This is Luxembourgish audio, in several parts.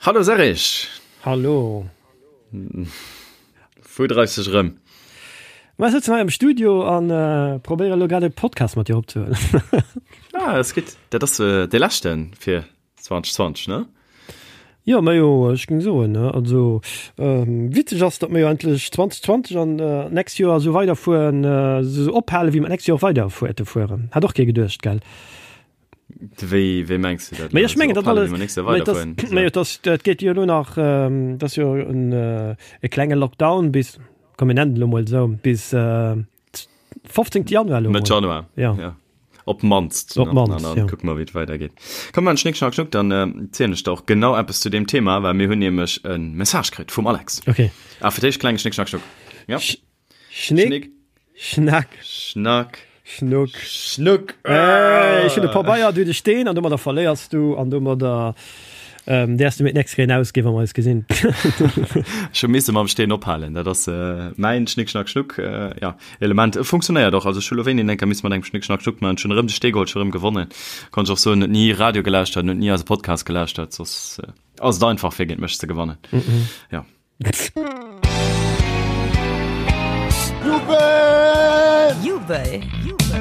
Hallo Serge! Hallo! Wou dreifs dech erëm? Ma ech sëtzen hei am Studio an probéiere lo grad e Podcast mat dir opzehuelen. Ah, dat ass gutt. Dat ass dee leschten fir 2020, ne? Jo, majo, ech géing soen, ne. Also witzeg ass, datt mir jo endlech 2020 an d'nächst Joer esou weiderfueren, esou ophale wéi mer d'nächst Joer och weiderfuerte fueren. Hat och kee geduecht, gell? Wéi, wéi mengs du dat? Mee ech mengen, dat alles, mee dat, dat geet jo elo nach, dat ass jo en e klenge Lockdown bis, komm mir nennen et elo mol esou, bis 15. Januar elo mol. Mëtt Januar, ja. Ja. Op d'mannst. Op d'mannst, ja. Dann kucke mer, wéi et weidergeet. Komm, mer Schnick, Schnack, Schnuck, dann zielen ech der och genau eppes zu deem Thema, well mir hunn nämlech e Message kritt vum Alex. Okay. Ah, fir d'éischt klenge Schnick, Schnack, Schnuck. Ja. Schnick, Schnack, Schnack, Schnuck, Schnuck. Äh, ech hunn e Pabeier, du de Steen an domadder verléiers du an domadder ähm, däers du mir d'nächst Kéier ausginn, wa mer eis gesinn. Ech hu misse mam Steen ophalen. Dat ass äh, mäin Schnick, Schnack, Schnuck äh, ja, Element. E funktionéiert och. Also ech hu lo wéini eng Kéier misse mat engem Schnick, Schnack, Schnuck man. Ech hunn erëm de Stee geholl, ech hu erëm gewonnen. Konnt ech och soen, huet ni Radio gelauschtert, huet ni eise Podcast gelauschtert. Soss äh, ass et einfach fir géint mech ze gewannen. Mm -mm. Ja. Jubel! Jubel!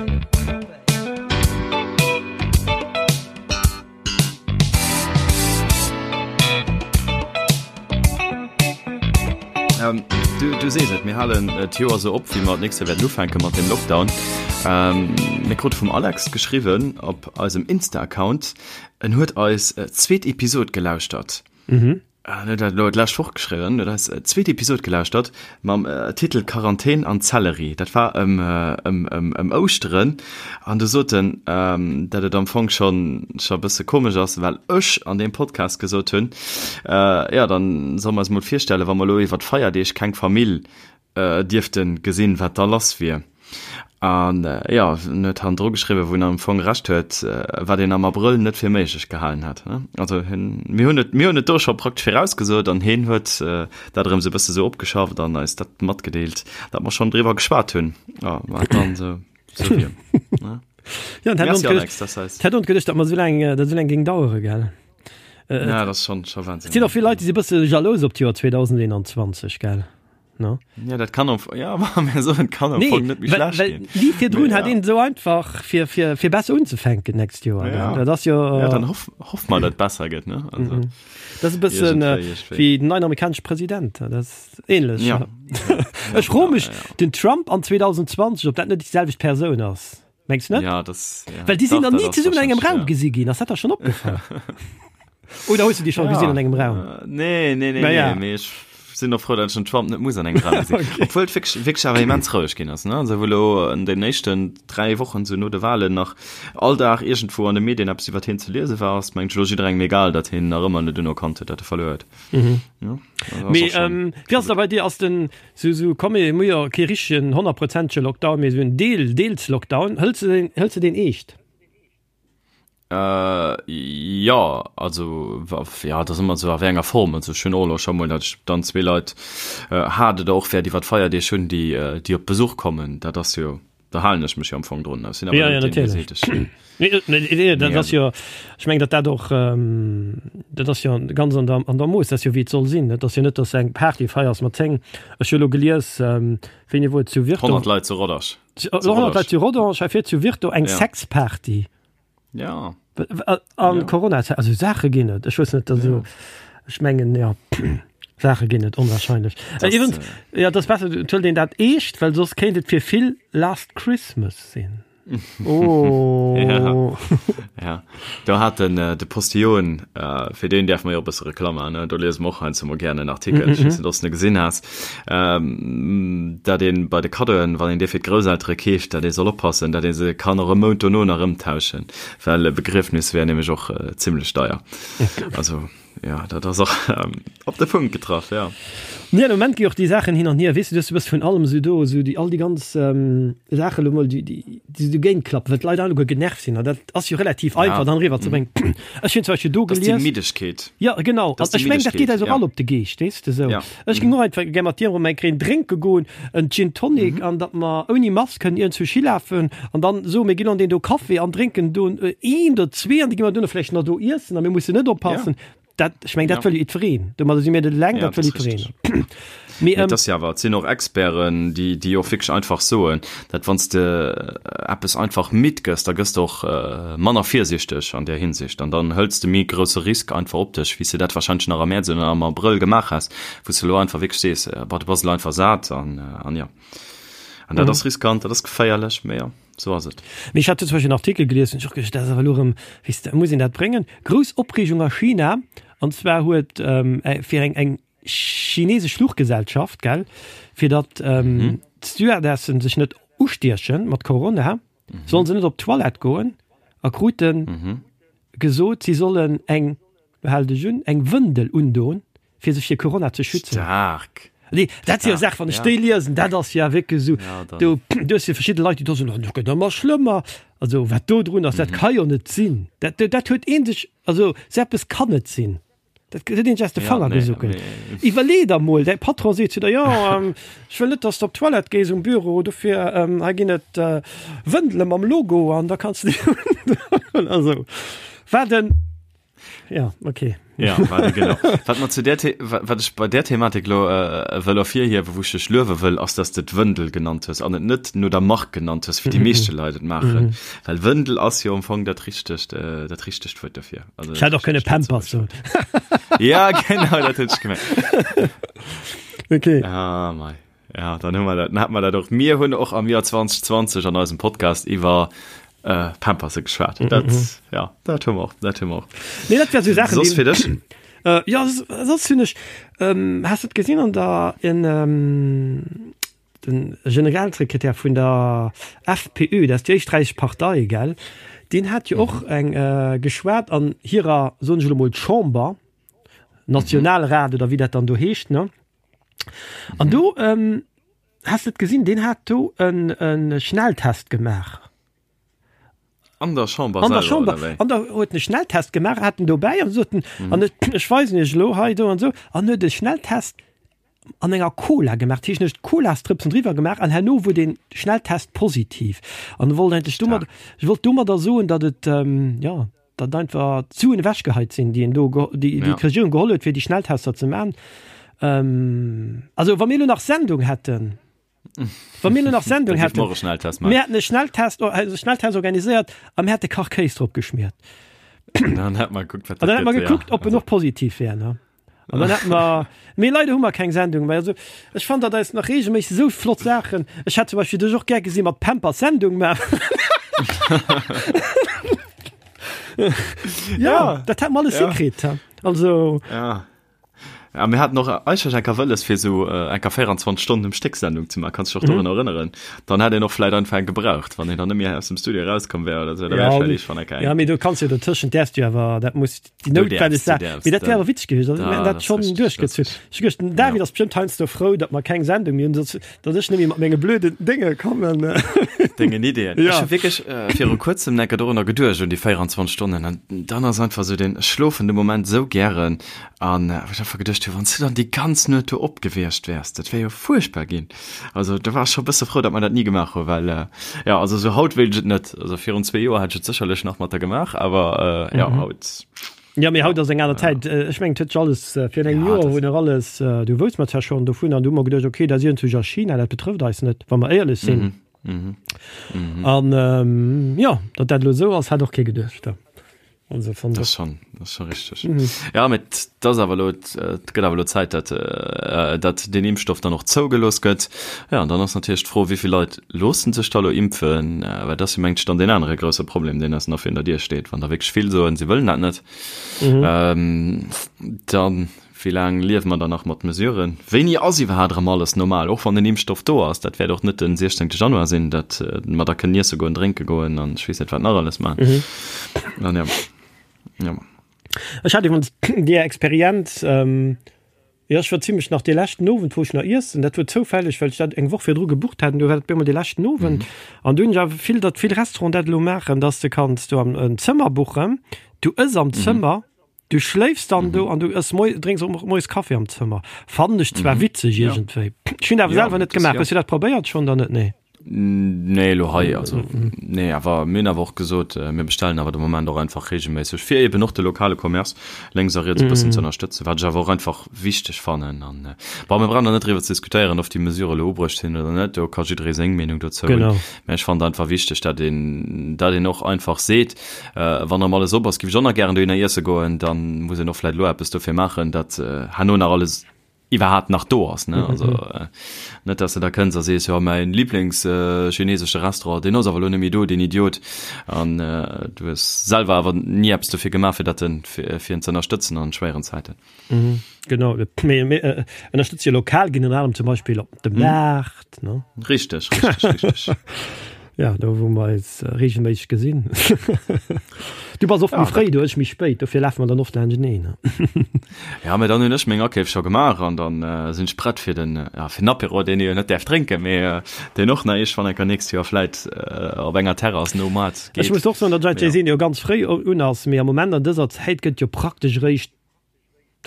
Ähm, du, du sees et, mir halen äh, d'Joer sou op, wéi mer d'nächst Joer wäerten ufänke mat dem Lockdown. Ähm, mir krute vum Alex geschriwwen op eisem Insta-Account, en huet eis äh, zweet Episod gelauschtert. Mhm. En huet dat elo d'lescht Woch geschriwwen, huet eis zweet Episod gelauschtert mam Titel Quarantän an Zellerie. Dat war ëm ëm ëm ëm Ouschteren an du sot en, dat et am Fong schonn scho e bësse komesch ass, well ech an deem Podcast gesot hunn, jo dann solle mer eis mol virstellen, wa mer elo iwwer d'Feierdeeg keng Famill dierften gesinn, wat da lass wier. An jo, en huet hannendru geschriwwen, wou en am Fong Recht huet, wat een am Abrëll net fir méiglech gehalen hätt. Also hien, mir hunn et, mir hunn et do scho praktesch virausgesot an hien huet dat erëm sou e bësse sou opgeschafft an eis dat matgedeelt, datt mer schonn driwwer geschwat hunn, jo, wat dann sou, sou wier. Jo, an Merci Alex, dat ass eis. Hätt ons geduecht, datt mer sou laang, dat sou laang géing dauere, gell? Ja, dat ass schonn, scho Wahnsinn. Et sinn och vill Leit, déi si bësse jalous op d'Joer 2021, gell? No? Ja, dat kann am, ja, aber so, kann am nee, Fong net méi well, schlecht well, ginn. Wie virdrun Nee, hat ja. een so einfach fir, fir, fir besser unzefänken nächst Joer. Ja. Dat ass jo, Ja, dann hoff, hoff mal, dat besser gëtt, ne? Also, Mhm. Das ist e bëssen äh, Irgendwéi, irgendwéi. wéi den neien amerikanesche President. Dat ass ähnlech. Ja. Ech froe mech, ja, ja. den Trump an 2020, ob dat net déi selwecht Persoun ass. Mengs net? Ja, das, ja. Well déi sinn Dach, dann dat ni ass zesummen an engem wahrscheinlich, Raum ja. gesi ginn. Ass dat der schon opgefall? Oder hues du déi schon gesinn an engem Raum? Äh, nee, nee, nee, Na ja. nee, mee ech sinn och frou, datt ech den Trump net muss an engem Raum gesinn. Okay. Obwuel et wierklech, wierklech awer immens roueg ginn ass, ne? Also wou elo an den éischten 3 Wochen sou no de Wahlen nach all Dag iergendwou an de Medien eppes iwwert hien ze liese war, ass mengen ech elo jidderengem egal, datt hien nach ëmmer net unerkannt huet, datt e verluer huet. Mhm. Ja, also ass Mee och schon ähm, wéi ass da bei dir? Ass den sou sou komm mir hu jo kee richtegen honnertprozentege Lockdown, mee sou en Deel, deels Lockdown. Hëls de deen, hëls de deen eescht? Äh, jo, also ja, dat ass ëmmer esou a wéi enger Form. Also ech hunn och elo scho mol, datt ech dann zwee Leit hat oder och wäert iwwer d'Feierdeeg hunn, déi déi op Besuch kommen. Dat ass jo, da halen ech mech jo am Fong drun. Ech sinn awer Ja, ja, net deen, dee natierlech. seet, ech. Nee, nee, nee, dat Nee, ass jo, ech mengen, datt dat och, dat ass jo ganz an der, an der Mooss, dat ass jo wéi et soll sinn. Et ass jo net, datt s de eng Party feiers mat 10, ech hu elo gelies, wéini wor et, zu Virton, 100 Leit zu Rodange. Zu 100 Leit zu Rodange, hei fir zu Virton eng Ja. Sexparty. Ja. An Ja. Corona-Zäit, also Saache ginn et. Ech wëss net, also ech mengen, ja, Saache ginn et, onwahrscheinlech. Das, Äh, iwwens, äh, ja, dat ass besser, et huelt een dat eescht, well soss kéint et fir vill Last Christmas sinn. Oh. Ja. Ja, do hat den äh, de Postillon, äh, fir deen däerfe mer jo e bësse Reklamm maachen, ne? Do liese mer och heiansdo mol gären en Artikel, ech weess net, ob s de gesinn has, ähm, dat een bei de Kaddoen, wann een dee fir d'Grousseltere keeft, dat ee soll oppassen, dat ee se kann och e Mount dono nach ëmtauschen, well e Begriefnis wär nämlech och äh, zimmlech deier. Also. Ja, dat ass och op de Punkt getraff, ja. Nee, am Moment gi och déi Saachen hin an hier, weess du, du hues e bësse vun allem esou do, esou déi all déi ganz Saache lo mol, déi déi déi esou géint klappen, well d'Leit alleguer genervt sinn an dat ass jo relativ einfach dann eriwwer ze bréngen. Ech hunn zum Beispill do Dat ass déi gelies. Middegkeet. Ja, genau, Dat ass an déi ech mengen, dat geet Middegkeet, eis och ja. all op de Geescht, weess de, esou. Ja. Ech géing och einfach gär mat dir erëm eng Kéier een drénke goen, en Gin Tonic, an datt mer ouni Mask kënnen iergendwou hilafen an dann soe mir ginn an deen do Café an drénken do een oder zwee an da gi mer duerno vläicht nach do iessen a mir mussen net oppassen. Dat, ech meng, dat wëll jo jiddwereen. Domadder si mir net eleng, dat wëll jiddwereen. Mee, ähm, dat ass jo awer, et sinn och Experten, déi, déi och wierklech einfach soen, dat wann s de eppes einfach midd gëss, da gëss de och manner virsiichteg an där Hinsicht an dann hëls de méi grousse Risk einfach op dech, wéi s de dat warscheinlech nach am Mäerz oder am Abrëll gemaach häss, wou s de elo einfach wierklech sees, Bah, du bass elo einfach sat an, an jo. An dat ass riskant, dat ass geféierlech, mee jo. Sou ass et. Mee ech hat do zum Beispill en Artikel gelies, hunn ech och geduecht, dat ass awer elo erëm, weess de, muss een dat bréngen? Grouss Opreegung a China, an zwar huet fir eng eng chinesesch Fluchgesellschaft, gell, fir datt d'Stewardessen sech net ustieche mat Corona, sollen se net op d'Toilette goen a krute gesot, si sollen eng, lo hal dech un, eng Wëndel undoen, fir sech fir Corona ze schützen. Staark! Nee, dat si jo Saachen, wann ech déi liesen, dat ass ja wierklech esou, do, do hues du verschidde Leit, déi do soen, oh, dat gëtt ëmmer schlëmmer. Also, wat do drun ass, dat ka jo net sinn. Dat, dat huet ee sech, also sou eppes kann net sinn. Dat huet een sech aus de Fanger gesuckelt. Iwwerlee der mol, däi Patron seet zu der, jo, ech wëll net, dass de op d'Toilette gees um Büro, dofir hei ginn et Wëndele mam Logo an da kanns de déi undoen. Also, wat en. Ja, okay. Ja, warte, genau. Wat mer zu der The wat ech bei der Thematik lo äh, wëll ervirhiewen, wou ech dech luewe wëll, ass, dass de d'Wëndel genannt hues an et net no der Mark genannt hues, wéi déi meeschte Leit et maachen. Well Wëndel ass jo am Fong dat richtegt, äh, dat richtegt Wuert dofir. Also, Ech hätt och kënne Pampers soen. Ja, genau, dat huet ech gemengt. Okay. Ah, mei. Ja, dann hu mer dat, dann hat mer dat och. Mir hunn och am Joer 2020 an eisem Podcast iwwer äh, Pamperse geschwat. Mm -hmm. Dat, ja, dat hu mer och, dat hu mer och. Nee, dat wär so Sachen, Soss fir dech? Äh, ja, soss hunn ech, ähm, has du et gesinn an der, in, ähm, den Generalsekretär vun der FPÖ, dat ass déi éisträichesch Partei, gell, deen hat jo och eng äh, geschwat an hirer, soen ech elo mol, Chamber, Nationalrat oder wéi dat dann do heescht, ne? An do ähm, hast du et gesinn, deen hat do en, en Schnelltest gemaach. An der Chamber An der Chamber. An da huet en Schnelltest gemaach, hat en dobäi an sot en, mhm. an ech, ech weisen iech elo hei do an sou, an huet e Schnelltest an enger Cola gemaach, dat heescht, en huet Colastrëpsen driwwer gemaach an herno wor den Schnelltest positiv. An e wollt eigentlech domat, ech wollt domadder soen, datt et, ähm, ja, datt einfach d'Suen ewechgeheit sinn, déi een do, déi déi d'Regierung geholl huet, fir déi Schnelltester ze man. Ähm, also wa mir elo nach Sendung hätten, wa mir elo nach Sendung hätten, mir hätten e Schnelltest, e Schnelltest organiséiert a mir hätte Kachkéis drop geschmiert. Dann hätt mer gekuckt, wat dat gëtt. Dann hätt mer gekuckt, ob en och positiv wär, ne? An dann hätten mer, mee leider hu mer keng Sendung méi. Also ech fannen, datt eis nach regelméisseg esou flott Saachen, ech hätt zum Beispill dech och gär gesi mat Pampers Sendung maachen. Ja, dat hätt mer alles hikritt. Also. Ja. Ja, mir haten och eigentlech eng Kéier wëlles, fir esou eng Kéier 24 Stonnen um Stéck Sendung ze maachen. Kanns dech och dorun erënneren? Dann hätt een och vläit einfach eng gebraucht, wann een dann net méi aus dem Studio erauskomm wär oder esou. Da wär vläicht iergendwann eng Kéier eng. Ja, mee do kanns jo dotëschent däerfs du jo awer, dat muss déi noutwenneg Saach, mee dat wär awer witzeg gewiescht, also mir hätten dat schonn duerchgezunn. Ech hu geduecht, den David ass bestëmmt heiansdo frou, datt mer keng Sendung méi hunn, soss datt ech net méi mat menge blöden Dénge kommen. Dengen Ideeën. Ja. Ech hu wierklech viru kuerzem enker dorunner geduecht, un déi 24 Stonnen, an dann ass einfach esou den, ech schlofen de Moment esou gären, an wou ech einfach geduecht hu, wann s du dann déi ganz Nuet do op gewiescht wäers, dat wär jo fuerchtbar ginn. Also do war ech scho e bësse frou, datt mer dat ni gemaach hu, well jo, also esou haut wéilt ech et net. Also virun zwee Joer hätt ech et sécherlech nach mat der gemaach, awer jo, haut. Jo, mee haut ass eng aner Zäit. Ech mengen, et huet sech alles virun engem Joer wou nach alles, du wousst mer zwar schonn dovun an du hu mer geduecht, okay, dat ass iergendwou a China, dat betrëfft eis net, wa mer éierlech sinn. An jo, datt dat elo esou ass, hat och kee geduecht. Also fand das schon das schon richtig mhm. ja mit das awer lo et gëtt awer lo Zäit dat äh, dat den Impfstoff dann och zougelooss gëtt ja an dann ass natierlech d'Fro wéivill Leit loossen sech da lo impfen äh, well dat ass jo mengt ech dann deen anere grousse Problem deen eis nach virun der Dier steet wann der wierklech vill soen se wëllen dat net mhm. ähm, dann Wéi laang liewe mer dann nach mat Mesuren? Wéini ass iwwerhaat erëm alles normal, och wann den Impfstoff do ass? Dat wäert och net den 16 Januar sinn, dat mer da kënnen iesse goen, drénke goen an ech weess net wat nach alles maachen. An ja, ja. Ech hat iwwerens déi Experienz, jo ech war zimlech nach dee leschten Owend wou ech nach iessen, dat wor zoufälleg well ech dat eng Woch virdru gebucht hat an du war dat op eemol dee leschten Owend an du hunn ech awer vill, datt vill Restauranten dat elo maachen, datt s de kanns do en Zëmmer buchen, du ëss am Zëmmer, Du schléifs dann do an du ëss moi, drénks och moies Kaffi am Zëmmer. Fannen ech zwar witzeg iergendwéi. Ech hunn awer selwer net gemaach. Hues du dat probéiert schonn oder net? Nee. Nee, elo hei, also nee, awer mir hunn awer och gesot, mir bestellen awer de Moment och einfach reegelméisseg, fir eben och de lokale Commerce lénks a riets e bëssen ze ënnerstëtzen, wat ech awer och einfach wichteg fannen. An bon, mir brauchen da net driwwer ze diskutéieren, ob déi Mesure elo ubruecht sinn oder net, do ka jidderee seng Meenung dozou hunn. Mä ech fannen et einfach wichteg, datt een, datt een och einfach seet, wann erëm alles op ass, géif ech och nach gären dohinner iesse goen, da muss een och vläicht elo eppes dofir maachen, datt herno nach alles iwwerhaapt nach do ass, ne? Also net, dass de da kënns a sees, jo mäin Lieblings-chinesesche Restaurant, deen ass awer elo net méi do, deen Idiot. An du hues selwer awer ni eppes dofir gemaach, fir dat en, fir en ze ënnerstëtzen an schwéieren Zäiten. Genau, mir, mir ënnerstëtze jo lokal ginn, ënner anerem zum Beispill op dem Maart, ne? Richteg, richteg, richteg. Ja, do wou mer eis regelméisseg gesinn. Du bass oft méi fréi do, ech méi spéit, dofir lafe mer dann oft laanschteneen. Ja, mä dann hunn ech meng Akeef scho gemaach an dann sinn ech prett fir den, ja, fir den Apéro, deen ee jo net däerf drénken, mee deen och nach iergendwann enker nächst Joer vläit op enger Terrass nom Moart geet. Ech muss och soen, datt eis Jay-Z jo ganz fréi un ass, mee am Moment an dëser Zäit gëtt jo praktesch eréischt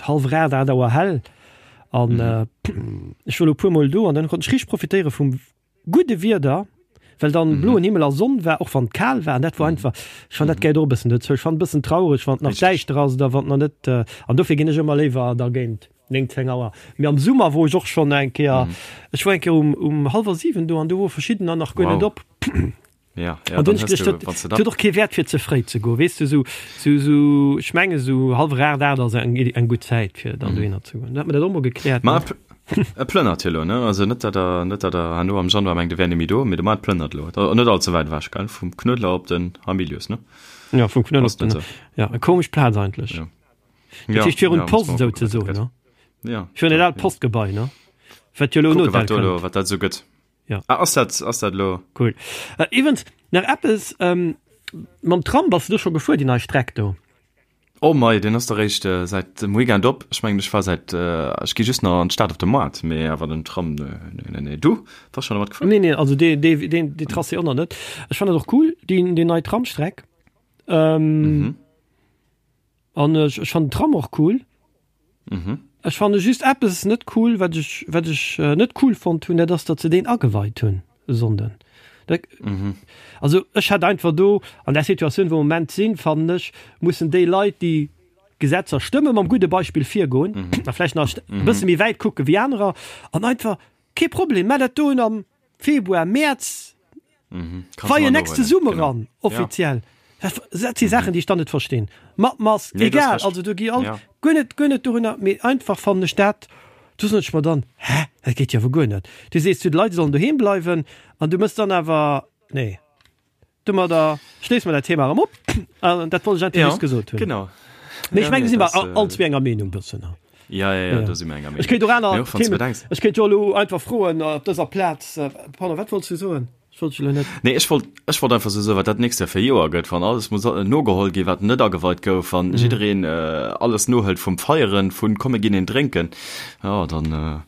hallwer 8, 8 Auer hell an ech war elo e puermol do an dann konnt ech richteg profitéiere vum gudde Wieder, well dann bloen Himmel a Sonn war, och wann et kal war, an dat war einfach, ech fann dat gehéiert och e bëssen dozou. Ech fann et e bëssen traureg, wann et nach däischter ass oder wann et nach net, an dofir ginn ech ëmmer léiwer da géint 9, 10 Auer. Mee am Summer wor ech och schonn eng Kéier, ech war eng Kéier um um hallwer 7 do an do wor verschiddener nach guer net op. Ja, ja, an dann hues du, wann du huet och kee Wäert fir ze fréi ze goen, weess du, sou, sou, sou, ech menge sou hallwer 8, 8 ass eng, eng gutt Zäit fir dann dohinner ze goen. Da hat mer dat och mol gekläert. Ma e plënnert jo elo, ne? Also net dat der, net dat der herno am Januar mengt, e wär net méi do, mee de Moart plënnert elo. Da net all ze wäit ewech, gell? Vum Knuedler op den Hamilius, ne? Ja, vum Knuedler op den, ja, eng komesch Plaz eigentlech. Ja. Dat heescht virun d'Post souzesoen, ne? Ja. Virun dat aalt Postgebai, ne? Wat jo elo en Kucke Hotel wat do elo, kënnt. wat dat esou gëtt. Ja. Ah, ass dat, ass dat elo? Cool. Äh, iwwens, nach eppes, ähm, mam Tram bass du do scho gefuer, déi nei Streck do? Oh mei, deen ass der réischt äh, säit dem Weekend op. Ech mengen, ech war säit, äh, ech gi just nach an d'Stad op de Moart, mee awer den Tram, nee, nee, nee, nee. Du, bass schon domat gefuer? Nee, nee, also dee, dee, deen, dee Tracé och nach net. Ech fannen dat och cool, déi, déi nei Tramstreck. Ähm, Mhm. An ech, ech fannen den Tram och cool. Mhm. Ech fanne just eppes net cool, wat ech, wat ech net cool fonnt hunn, dat ass, datt se deen ageweit hunn e Sonnden. Dat, Mhm. also ech hätt einfach do an där Situatioun, wou mer am Moment sinn, fannen ech, mussen déi Leit, déi Gesetzer stëmmen, mam gudde Beispill virgoen a vläicht nach e bësse méi wäit kucke wéi anerer an einfach, kee Problem, mä dat doen am Februar, Mäerz, Weien next zesumme ran, offiziell. Dat si Saachen, déi ech dann net verstinn. Mat Mask, egal, also do gi all, guer net, guer net dorunner, mee einfach fannen ech dat, do soen ech mer dann, hä, dat geet jo awer guer net. Du sees zu de Leit, se sollen doheem bleiwen an du mëss dann awer, nee. Domadder schléisse mer dat Thema erëm op an dat wollt ech einfach just gesot hunn. Genau. Mee ech mengen, do si mer all zwee enger Meenung bëssen. Ja, ja, ja, do si mer enger Meenung. Ech kéint och aner Themen, ech kéint jo elo einfach froen op dëser Plaz, pardon, wat wollts du soen? Ech wollt dech elo net. Nee, ech wollt, ech wollt einfach sou soen, wat dat nächst Joer fir e Joer gëtt, wann alles muss nogeholl ginn, wat net ageweit gouf, wann jiddereen alles nohëlt vum Feieren, vun komm mir ginn een drénken, jo, dann,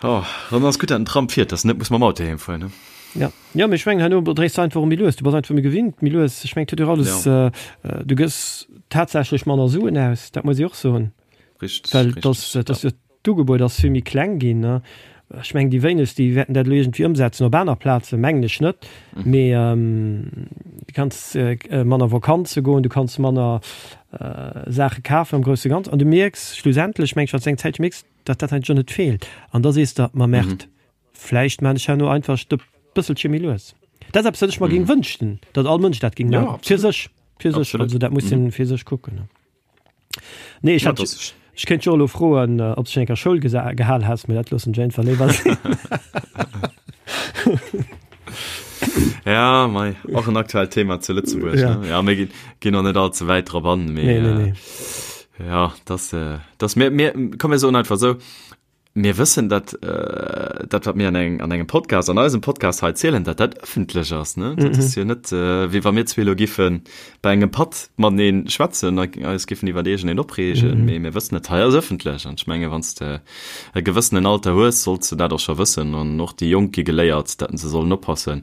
jo, dann ass gutt, dat den Tram fiert, dass en net muss mam Auto heem fueren, ne? Ja. Jo, mee ech mengen herno dréis de einfach och méi lues, du bass einfach méi gewinnt méi lues. Ech mengen et huet jo alles, du gëss tatsächlech manner Suen aus, dat muss ee och soen. Richteg, Well dass, dass jo d'Ugebuet ass vill méi kleng ginn, ne. Ech mengen déi wéinegst déi wäerten dat elo iergendwéi ëmsetzen op aner Plazen, mengen ech net. Mee du kanns manner Vakanze goen, du kanns manner Saache kafen am grousse Ganzen an du mierks schlussendlech, meng ech, wann s de eng Zäitche mierks, datt dat eigentlech och net feelt an da sees de, ma Merde, Vläicht maan ech herno einfach e bësselche méi lues. Dat ass eppes, wat ech mer géing wënschten, datt all Mënsch dat géing maachen. Fir sech, fir sech. Also dat muss een fir sech kucken. Nee, ech hat, ech kéint jo elo froen, ob s de schonn eng Kéier Schoul gehal has, mee dat loossen ech einfach léiwer sinn. Ja, mei, och en aktuellt Thema zu Lëtzebuerg. Ja. Ne? Ja, mir ginn, ginn och net all ze wäit drop an, mee, Nee, nee, nee. ja, das, das, mir, mir, komm, mir soen einfach esou, Mir wëssen, datt dat, wat mir an engem, an engem Podcast, an eisem Podcast hei zielen, datt dat ëffentlech ass. Ne? Dat ass jo net, wéi wa mir zwee elo giffe bei engem Patt matenee schwätzen a eis giffen iwwer iergendeen opreegen. Mee mir wëssen, dat hei ass ëffentlech. An ech menge wann s de e gewëssenen Alter hues, solls de dat och scho wëssen. An och déi Jonk gi geléiert, datt se sollen oppasse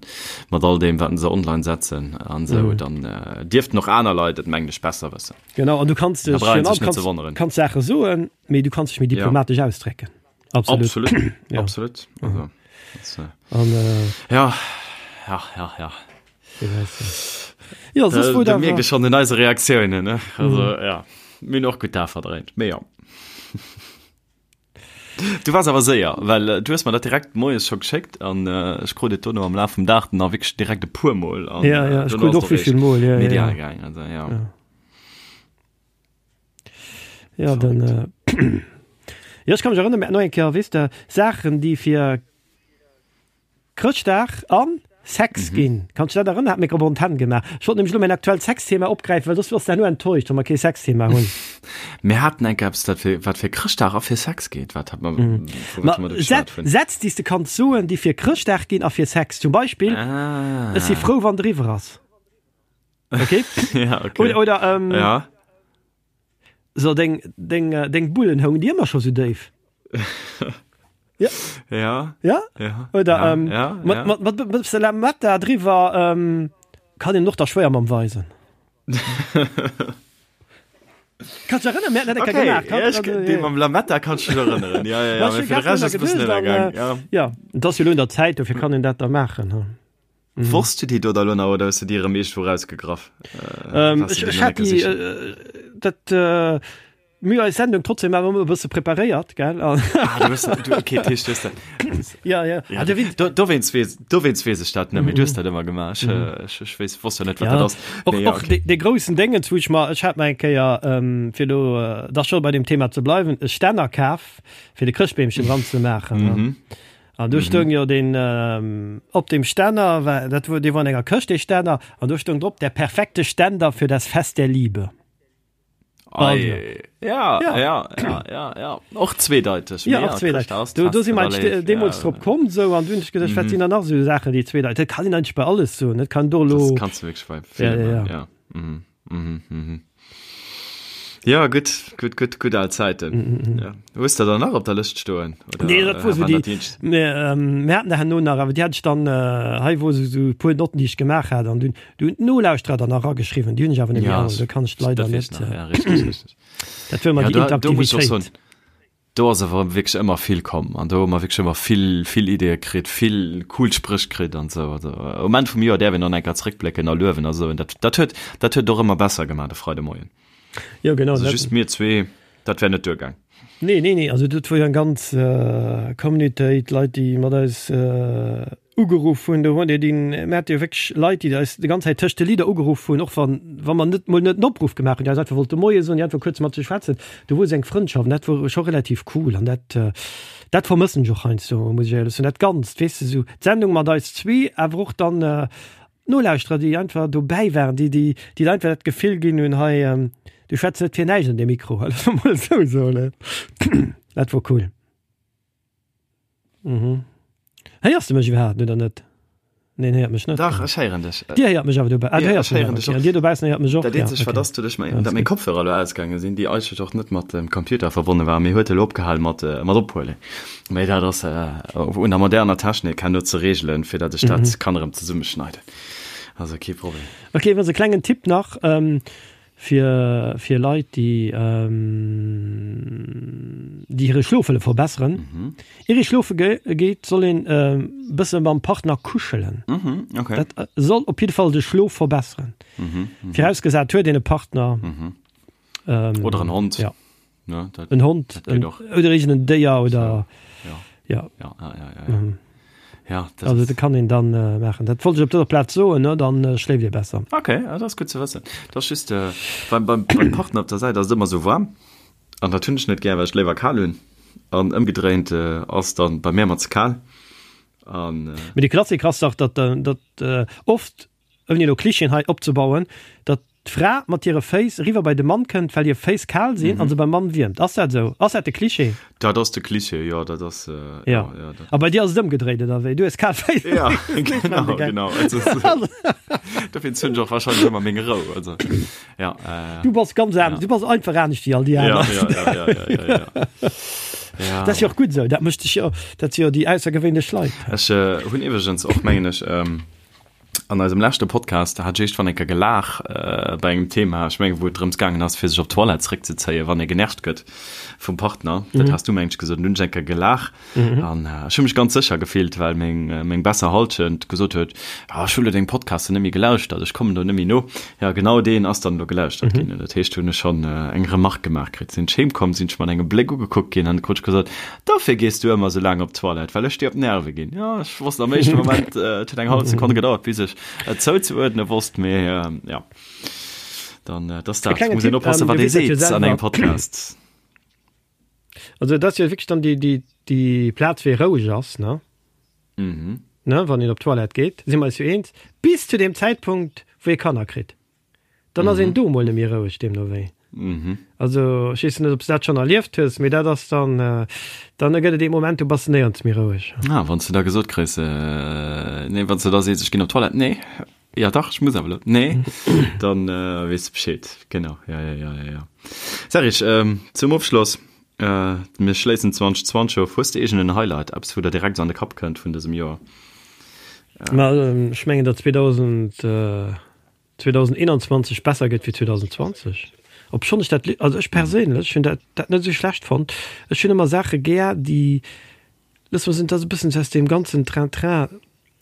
mat all deem, wat se online setzen an esou. Dann dierften och aner Leit et, mengen ech, besser wëssen. Genau, an du kanns dech virun allem kanns Saache soen, mee du kanns dech méi diplomatesch ausdrécken. Absolut. Absolut. Ja. Absolut. Also. An, äh, ja, ja, ja, ja. Ja, soss wor dat. Mierkt ee schonn un eise Reaktiounen, ne? Also, mm. ja, mir hunn och gutt da verdréint, mee ja. Du wars awer séier, well äh, du hues mer dat direkt moies scho geschéckt an äh, ech krut et dono am Laf vum Dag dann nach wierklech direkt e puer Mol an ja, ja, äh, ech krut och wéivill Mol, ja, medial ja. gaang, also ja. Ja, ja dann äh, Ja, ech kann mech erënnern, mir haten och eng Kéier, weess de, Saachen, déi fir Chrëschtdag an Sex mhm. ginn. Kannst du dat erënnern? Hat mir op Antenn gemaach. Ech wollt nämlech lo mäin aktuellt Sexthema opgräifen, well soss wars du herno enttäuscht, wa mer kee Sexthema hunn. Mir haten eng eppes, dat fir, wat fir Chrëschtdag a fir Sex geet. Wat hat man, mhm. Ma, Sätz, déi s de kanns soen, déi fir Chrëschtdag ginn a fir Sex. Zum Beispill, ah. Ech si frou, wann driwwer ass. Okay? ja, okay. Oder, oder ähm, ja. So, deng, deng, äh, deng Bullen houngen déi ëmmer scho sou déif. Ja. Ja. Ja? Ja. Oder ja, ähm, ja, mat, ja. mat, mat, mat bësse Lametta driwwer ähm, kann een och da schwéier mam weisen. Kannst du erënnern, mir haten dat eng Kéier Okay, gemaach. ja, ich, also, dee mam Lametta kann ich mich erënneren. Ja, ja, ja, Ja, mee ech fir de Rescht ass e bëssen geduecht, an, ënnergaang. äh, Ja. ja, et ass jo lo un der Zäit, dofir kann een dat da maachen. Hm. Mhm. Wosst du déi do da lo nach oder hues du déi erëm iergendwou rausgegraff? Äh, ähm, ech, ech hat déi, äh, dat, äh, mir eis Sendung trotzdem awer ëmmer e bësse preparéiert, gell? Ah, du hues, du, okay, Tisch, du hues dat. Ja, ja. ja ah, du, dowéinst weess, dowéinst weess ech dat net, mee du hues mhm. dat ëmmer gemaach. Ech, mhm. ech, ech weess, wosst jo net, wat ja. dat ass. Och, nee, ja, okay. de, de groussen Déngens, wou ech mer, ech hat mer eng Kéier, ähm, fir do, äh, da scho bei dem Thema ze bleiwen, e Stänner kaf, fir de Chrëschtbeemchen dran ze maachen. Mhm. An do stoung jo deen, op deem Stänner war, dat wor, dee wor an enger Këscht, dee Stänner, an do stoung drop, Der perfekte Ständer für das Fest der Liebe. Also. Ja, ja, ja, ja, ja, ja. Och zweedeiteg. Ja, och zweedeiteg. Do, do si mer deemools drop komm, sou, an du hunn ech geduecht, wat sinn dann nach esou Saachen, déi zweedeiteg, dat kann een eigentlech bei alles soen, dat kann do elo. Das kanns du wierklech bei villem, ja, ja, ja. ja. Mhm. Mhm, mhm. Ja, gutt, gutt, gutt, gutt al Zäiten. Mm, mm, Ja. Hues de der nach op der Lëscht stoen? Oder, Nee, dat wor äh, sou waren déi, dat déi eenzeg? mir, ähm, mir haten der herno nach, awer déi hat ech dann, äh, hei wor sou, sou e puer Notten, déi ech gemaach hat, an dunn, du hunn d'Nolauschterer dann nach erageschriwwen, déi hunn ech awer net méi Ja, all, do kann ech leider dat weess net, nach, äh, ja, richtig, richtig. dat wor ëmmer Ja, déi do, do muss ich och soen, Interaktivitéit. Do ass awer wierklech ëmmer vill komm an do hu mer wierklech ëmmer vill, vill Ideeë kritt, vill cool Spréch kritt an esou. Also um Enn vum Joer däerf een dann eng Kéier zréckblécken a luewen a sou. Dat, dat huet, dat huet et och ëmmer besser gemaach, de Freidemoien. Jo, genau. Also just mir zwee, dat wär net duergaang. Nee, nee, nee, also dat wor jo eng ganz Communautéit, Leit, déi mat eis Ugeruff hunn, do hunn déi, mir hate jo wierklech Leit, déi eis déi ganz Zäit tëscht de Lidder ugeruff hunn, och wann, wa mer net mol net en Opruff gemaach hunn, déi eis einfach wollte Moie soen, déi einfach kuerz mat sech schwätzen. Do wor esou eng Frëndschaft an dat wor scho relativ cool an dat, dat vermëssen ech och heiansdo, muss ech éierlech soen. Dat Ganzt, weess de, esou d'Sendung mat eis zwee, awer och dann d'Nolauschterer, déi einfach dobäi waren, déi, déi, déi der einfach dat Gefill ginn hunn, hei, du schwätz net fir näischt an deem Mikro, loosse mer mol esou soen. Dat wor cool. Mhm. Héiers de mech iwwerhaapt oder net? Neen, héiert mech net. Dach, ech héieren dech. Dir héiert mech awer dobäi. Ah, du Ja, héiers ech mech héieren awer. dech Okay. och. An dir dobaussen héiert mech och. Dat Ja, eenzegt, wat okay. ass, doduerch Ja, dat ass meng gutt. Kopfhörer elo ausgaange sinn, déi eigentlech och net mat dem Computer verbonne waren, mee huet elo opgehal mat, mat ophuelen. Mee dat ass un der moderner Technik herno ze reegelen, fir dat ech dat kann erëm zesummeschneiden. Also kee Problem. Okay, iwwregens e klengen Tipp nach. Fir fir Leit, déi déi hire Schlof wëlle verbesseren. Ier ee schlofe geet, soll een e bësse mam Partner kuschelen. Okay. Dat soll op jidde Fall de Schlof verbesseren. Virausgesat huet een e Partner. Oder en Hond. Ja. Ne, dat, En Hond, dat geet en, och. oder iergend en Déier oder Ja. ja. Ja, ja, ja, ja, ja. Ja, dat Also dat kann een dann äh, maachen. Dat wollt ech op dëser Plaz soen, ne? Dann äh, schléift Dir besser. Okay, ja, dat ass gutt ze wëssen. Dat ass just äh, beim, beim, beim Partner op der Säit ass et ëmmer sou waarm. An dat hunn ech net gär, well ech léiwer kal hunn. An ëmgedréint äh, ass dann bei mir ëmmer ze kal. An äh, Mee de Klassiker ass dach, datt, äh, datt äh, oft ouni elo Klischeen hei opzebauen, datt d'Fra mat hire Féiss eriwwer bei de Mann kënnt, well hir Féiss kal sinn an se beim Mann wiermt. Ass dat esou? Ass dat de Klischee? Dat ass de Klischee, jo, dat ass, jo, jo. A bei dir ass et ëmgedréit, oder wéi? Du hues kal Féiss? Jo, genau, genau. Dofir hunn ech och wahrscheinlech ëmmer meng Rou, also, jo. Du bass ganz anescht, du bass einfach anescht wéi all déi aner. Jo, jo, jo, jo, jo, jo. Dat ass jo och gutt esou, dat mécht dech jo, dat si jo déi aussergewéinlech Leit. Ech hunn iwwregens och, mengen ech. An eisem leschte Podcast, da hat ech éischt eng Kéier gelaach bei engem Thema, ech mengen, wou et drëms gaangen ass, fir sech op d'Toilette zeréckzezéien, wann ee genervt gëtt vum Partner. Dat has du, mengen ech, gesot. An dunn hunn ech eng Kéier gelaach an ech hu mech ganz sécher gefillt, well meng, meng besser Hallschent gesot huet, Ah, ech hu lo deng Podcasten net méi gelauschtert, ech kommen do net méi no. Jo, genau deen ass dann elo gelauschtert ginn. An dat heescht, hunn ech schonn eng Remark gemaach kritt. Sinn ech heem komm, sinn ech mat engem Bléck ugekuckt ginn an krut ech gesot, Dofir gees du ëmmer sou laang op d'Toilette, well ech dir op d'Nerve ginn. Jo, ech wosst am éischte Moment, et huet eng hallef Sekonn gedauert, bis ech et zouzeuerdne wosst, mee jo, dann, et ass dat, muss een oppassen, wat ee seet an engem Podcast. Also et ass jo wierklech dann déi, déi, déi Plaz, wéi roueg ass, ne? Mhm. Ne, wann een op d'Toilette geet, si mer eis jo eens, bis zu deem Zäitpunkt, wou ee Kanner kritt. Dann ass een do mol net méi roueg, deemno wéi. Mhm. Also ech weess net, ob s de dat schonn erlieft hues, mee dat ass dann, dann gëtt et ee Moment, do bass de néierens méi roueg. Ah, wann s de da gesot kriss, nee, wann s de da sees, ech ginn op d'Toilette, nee, ja dach, ech muss awer elo, nee, dann weess de Bescheed. Genau, ja, ja, ja, ja, ja. Serge, zum Ofschloss, mir schléissen 2020 of, hues de iergend en Highlight, eppes wou der direkt esou an de Kapp kënnt vun dësem Joer? Ma ech mengen, datt 2000, 2021 besser gëtt wéi 2020, obschonn ech dat, also ech perséinlech hunn dat dat net esou schlecht fonnt. Ech hunn ëmmer Saache gär, déi, loosse mer soen, dat ass e bëssen aus deem ganzen Train-train,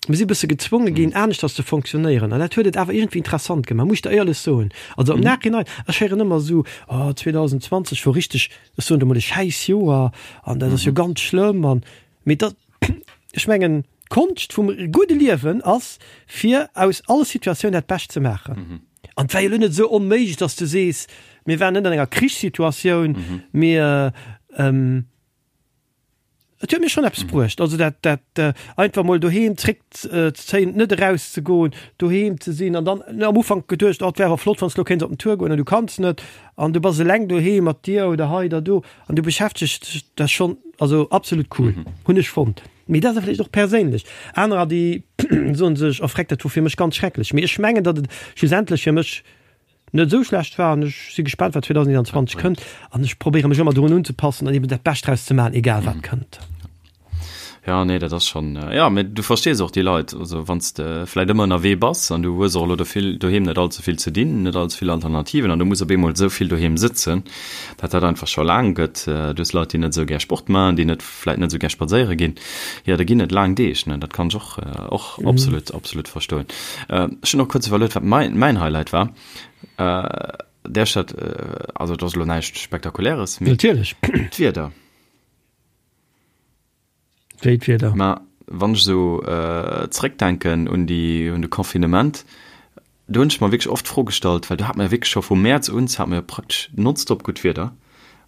mir si e bësse gezwonge ginn, aneschters ze fonctionnéieren an dat huet et awer iergendwéi interessant gemaach, muss ech der éierlech soen. Also am Nachhinein, ech héieren ëmmer esou, oh 2020 wor richteg, ech soen et emol, e Schäissjoer an dat ass jo ganz schlëmm an, mee dat, ech mengen, D'Konscht vum gudde Liewen ass, fir aus all Situatioun dat Bescht ze maachen. An et war jo elo net esou onméiglech, datt s du sees, mir waren net an enger Krichssituatioun, mee et huet mir schonn eppes bruecht. Also dat, dat einfach mol doheem zréckzezéien, net erauszegoen, doheem ze sinn an dann am Ufank geduecht, oh et wär awer flott, wann s de elo kéints op den Tour goen an du kanns net an du bass eleng doheem mat dir oder hei oder do an du beschäftegs dech, dat ass schonn, also absolut cool, hunn ech fonnt. Mee dat ass vläicht och perséinlech. Anerer, déi soen sech, oh freck, dat wor fir mech ganz schrecklech. Mee ech mengen, datt et schlussendlech fir mech net esou schlecht war an ech si gespaant, wat 2021 kënnt an ech probéiere mech ëmmer dorun unzepassen an eben dat Bescht draus ze maachen, egal wat kënnt. Ja, nee, dat ass schonn, jo, mee du verstees och déi Leit. Also wann s de vläicht ëmmer ënnerwee bass an du hues och elo do vill doheem net all ze vill ze dinn, net all ze vill Alternativen an du muss op eemol esou vill doheem sëtzen, datt dat einfach scho laang gëtt. Du hues Leit, déi net esou gär Sport maachen, déi net vläit net esou gär spadséiere ginn, jo, da ginn et laang Deeg, ne? Dat kann ech och, och absolut, absolut verstoen. Ech hunn och kuerz iwwerluet, wat mein, mäin Highlight war. Där Stadt, also et ass elo näischt Spektakuläres, mee Natierlech. d'Wieder. Wéi d'Wieder? Ma wann ech esou zréckdenken un déi, un de Confinement, Do hunn ech mer wierklech oft d'Fro gestallt, well do hat mer jo wierklech scho vu Mäerz un hat mer jo praktesch nonstop gutt Wieder,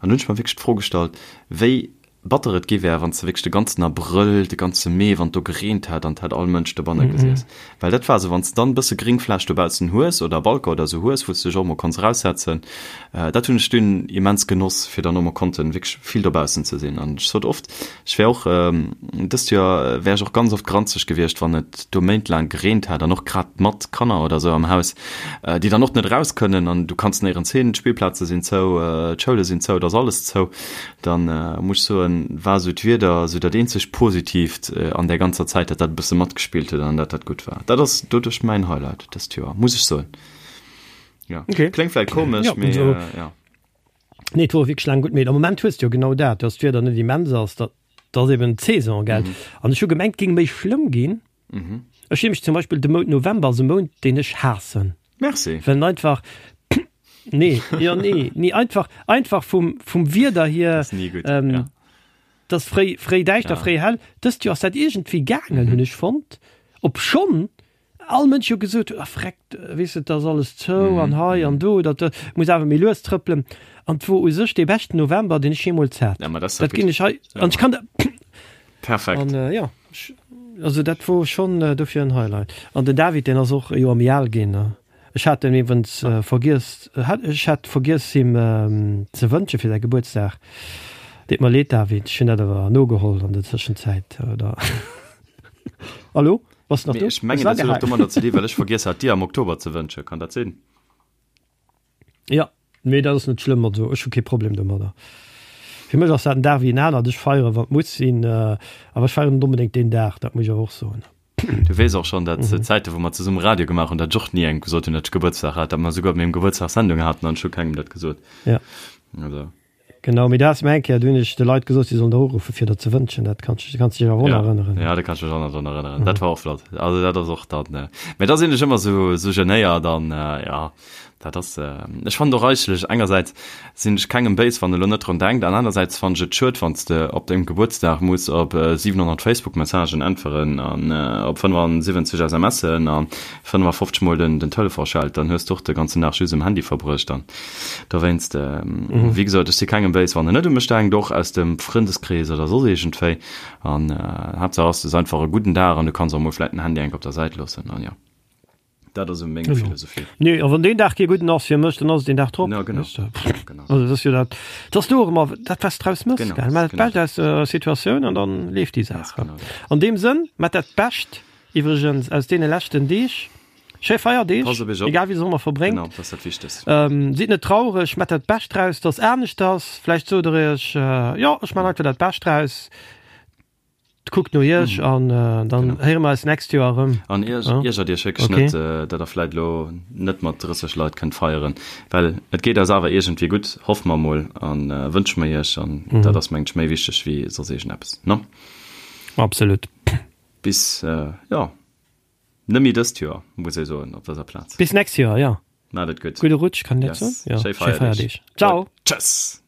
an do hunn ech mer wierklech d'Fro gestallt, wéi batter et gi wär, wann s de wierklech de ganzen Abrëll, de ganze Mee, wann et do gereent hätt an et hätt all Mënsch dobanne gesiess. Well dat war esou, wann s de dann e bësse Gréngfläch dobaussen hues oder Balcon oder esou hues, wou s de dech och emol konns eraussetzen, dat hunn ech dunn immens genoss, fir dann och emol konnten wierklech vill dobaussen ze sinn. An ech sot oft, Ech wär och, dëst Joer wär ech och ganz oft granzeg gewiescht, wann et do méintlaang gereent hätt an och grad mat Kanner oder sou am Haus, déi dann och net eraus kënnen an du kanns néierens hin, d'Spillplaze sinn zou, d'Schoule sinn zou, et ass alles zou. Dann muss ech soen, war sou d'Wieder sou dat eenzegt Positiivt an där ganzer Zäit, dat dat e bësse matgespillt huet an dat dat gutt war. Dat ass doduerch mäin Highlight dëst Joer, muss ech soen. Jo, kléngt vläicht komesch, mee jo. Nee, et wor wierklech laang gutt, mee am Moment hues de jo genau dat, dass d'Wieder net immens ass, dat ass eben d'Saison, gell? An ech hu gemengt, et géing méi schlëmm ginn. Ech hu nämlech zum Beispill de Mount November ass e Mount, deen ech haassen. Merci. Well en einfach, nee, jo, nee, nee, einfach, einfach vum, vum Wieder hier, Ass ni gutt, ja. 't ass fréi, fréi däischter, fréi hell. Dëst Joer ass dat iergendwéi gaangen, hunn ech fonnt, obschonn all Mënsch jo gesot huet, ah freckt, weess de, 't ass alles zou an hei an do, dat muss awer méi lues trëppelen. An 't wor u sech dee beschten November, deen ech jeemools hat. Ja, ma dat ass Dat ginn ech hei, an ech kann dat. Perfekt. An jo, also dat wor schonn dofir en Highlight. An den David, deen ass och e Joer méi al ginn. Ech hat en iwwrens vergiess, ech hat vergiess him ze wënsche fir säi Gebuertsdag. Deet mer leed, David, ech hunn dat awer nogeholl an der Tëschenzäit, oder? Hallo? Bass de nach do? Ech mengen, dat huet och domadder ze dinn, well ech vergiess hat, dir am Oktober ze wënschen. Kann dat sinn? Jo, mee dat ass net schlëmm. Also ech hu kee Problem domadder. Fir mech ass dat en Dag wéi en anert. Ech feieren, wann et muss sinn, awer ech feieren net onbedéngt deen Dag, dat muss ech awer och soen. Du weess och schonn, datt Zäite wou mer zesumme Radio gemaach hunn, datt ech och ni engem gesot hunn, datt ech Gebuertsdag hat, datt mer souguer op mengem Gebuertsdag Sendung haten an ech hu kengem dat gesot. Ja. Also. Genau, mee du has mir eng Kéier, du hunn ech de Leit gesot, si sollen der uruffen, fir der ze wënschen. Dat kanns du kanns dech awer och nach erënneren. Ja, da kann ech mech och nach drun erënneren. Dat war och flott. Also dat ass och dann, mee da sinn ech ëmmer sou, sou genéiert an ja. Dat ass, ech fannen och eigentlech, engersäits sinn ech kengem béis, wann e lo net drun denkt, an anersäits fannen ech et schued, wann s de op dengem Gebuertsdag muss op 700 Facebook-Messagen äntweren an op 75 SMSen a 55 mol den Telefon schellt, dann hues de och de ganzen Dag just um Handy verbruecht. An dowéinst, wéi gesot, ech si kengem béis, wann en net u mech denkt, och aus dem Frëndeskrees oder soss iergendwéi. An Haaptsaach ass, du hues einfach e gudden Dag an du kanns och mol vläit den Handy enk op der Säit loossen an jo. Dat ass meng genau. Philosophie. Nee, a wann deen Dag kee gudden ass fir mech, dann ass et deen Dag drop. Ja, genau. Weißt du? Genau. Also dat ass jo dat, dat ass du och ëmmer dat, wat s draus mëss, Genau, gell? Mat dat genau. Bescht aus der Situatioun an dann leeft déi Ganz Saach. genau dat. An deem Sënn, mat dat Bescht iwwregens aus deene leschten Deeg, schéi Feierdeeg, Passt op iech op. egal wéi se ëmmer verbréngt. Genau, dat ass dat Wichtegst. Ähm, sidd net traureg, mat dat Bescht draus, dass anescht ass. Vläicht sot der iech, jo, ech man einfach dat Bescht draus. Kuckt no iech an dann héiere mer eis nächst Joer erëm. An iergert iech wierklech net, datt der vläit elo net mat 30 Leit kënnt feieren, well et geet eis awer iergendwéi gutt, hoffe mer emol a wënsche mer iech. An dat ass, mengen ech, méi wichteg wéi soss iergendeppes, ne? Absolut. Bis, jo, net méi dëst Joer, muss ee soen op dëser Plaz. Bis nächst Joer, jo. Maacht et gutt. Gudde Rutsch, kann een dat Yes. soen? Jo. Schéi Schéi Feierdeeg. Feierdeeg. Ciao. Tschëss.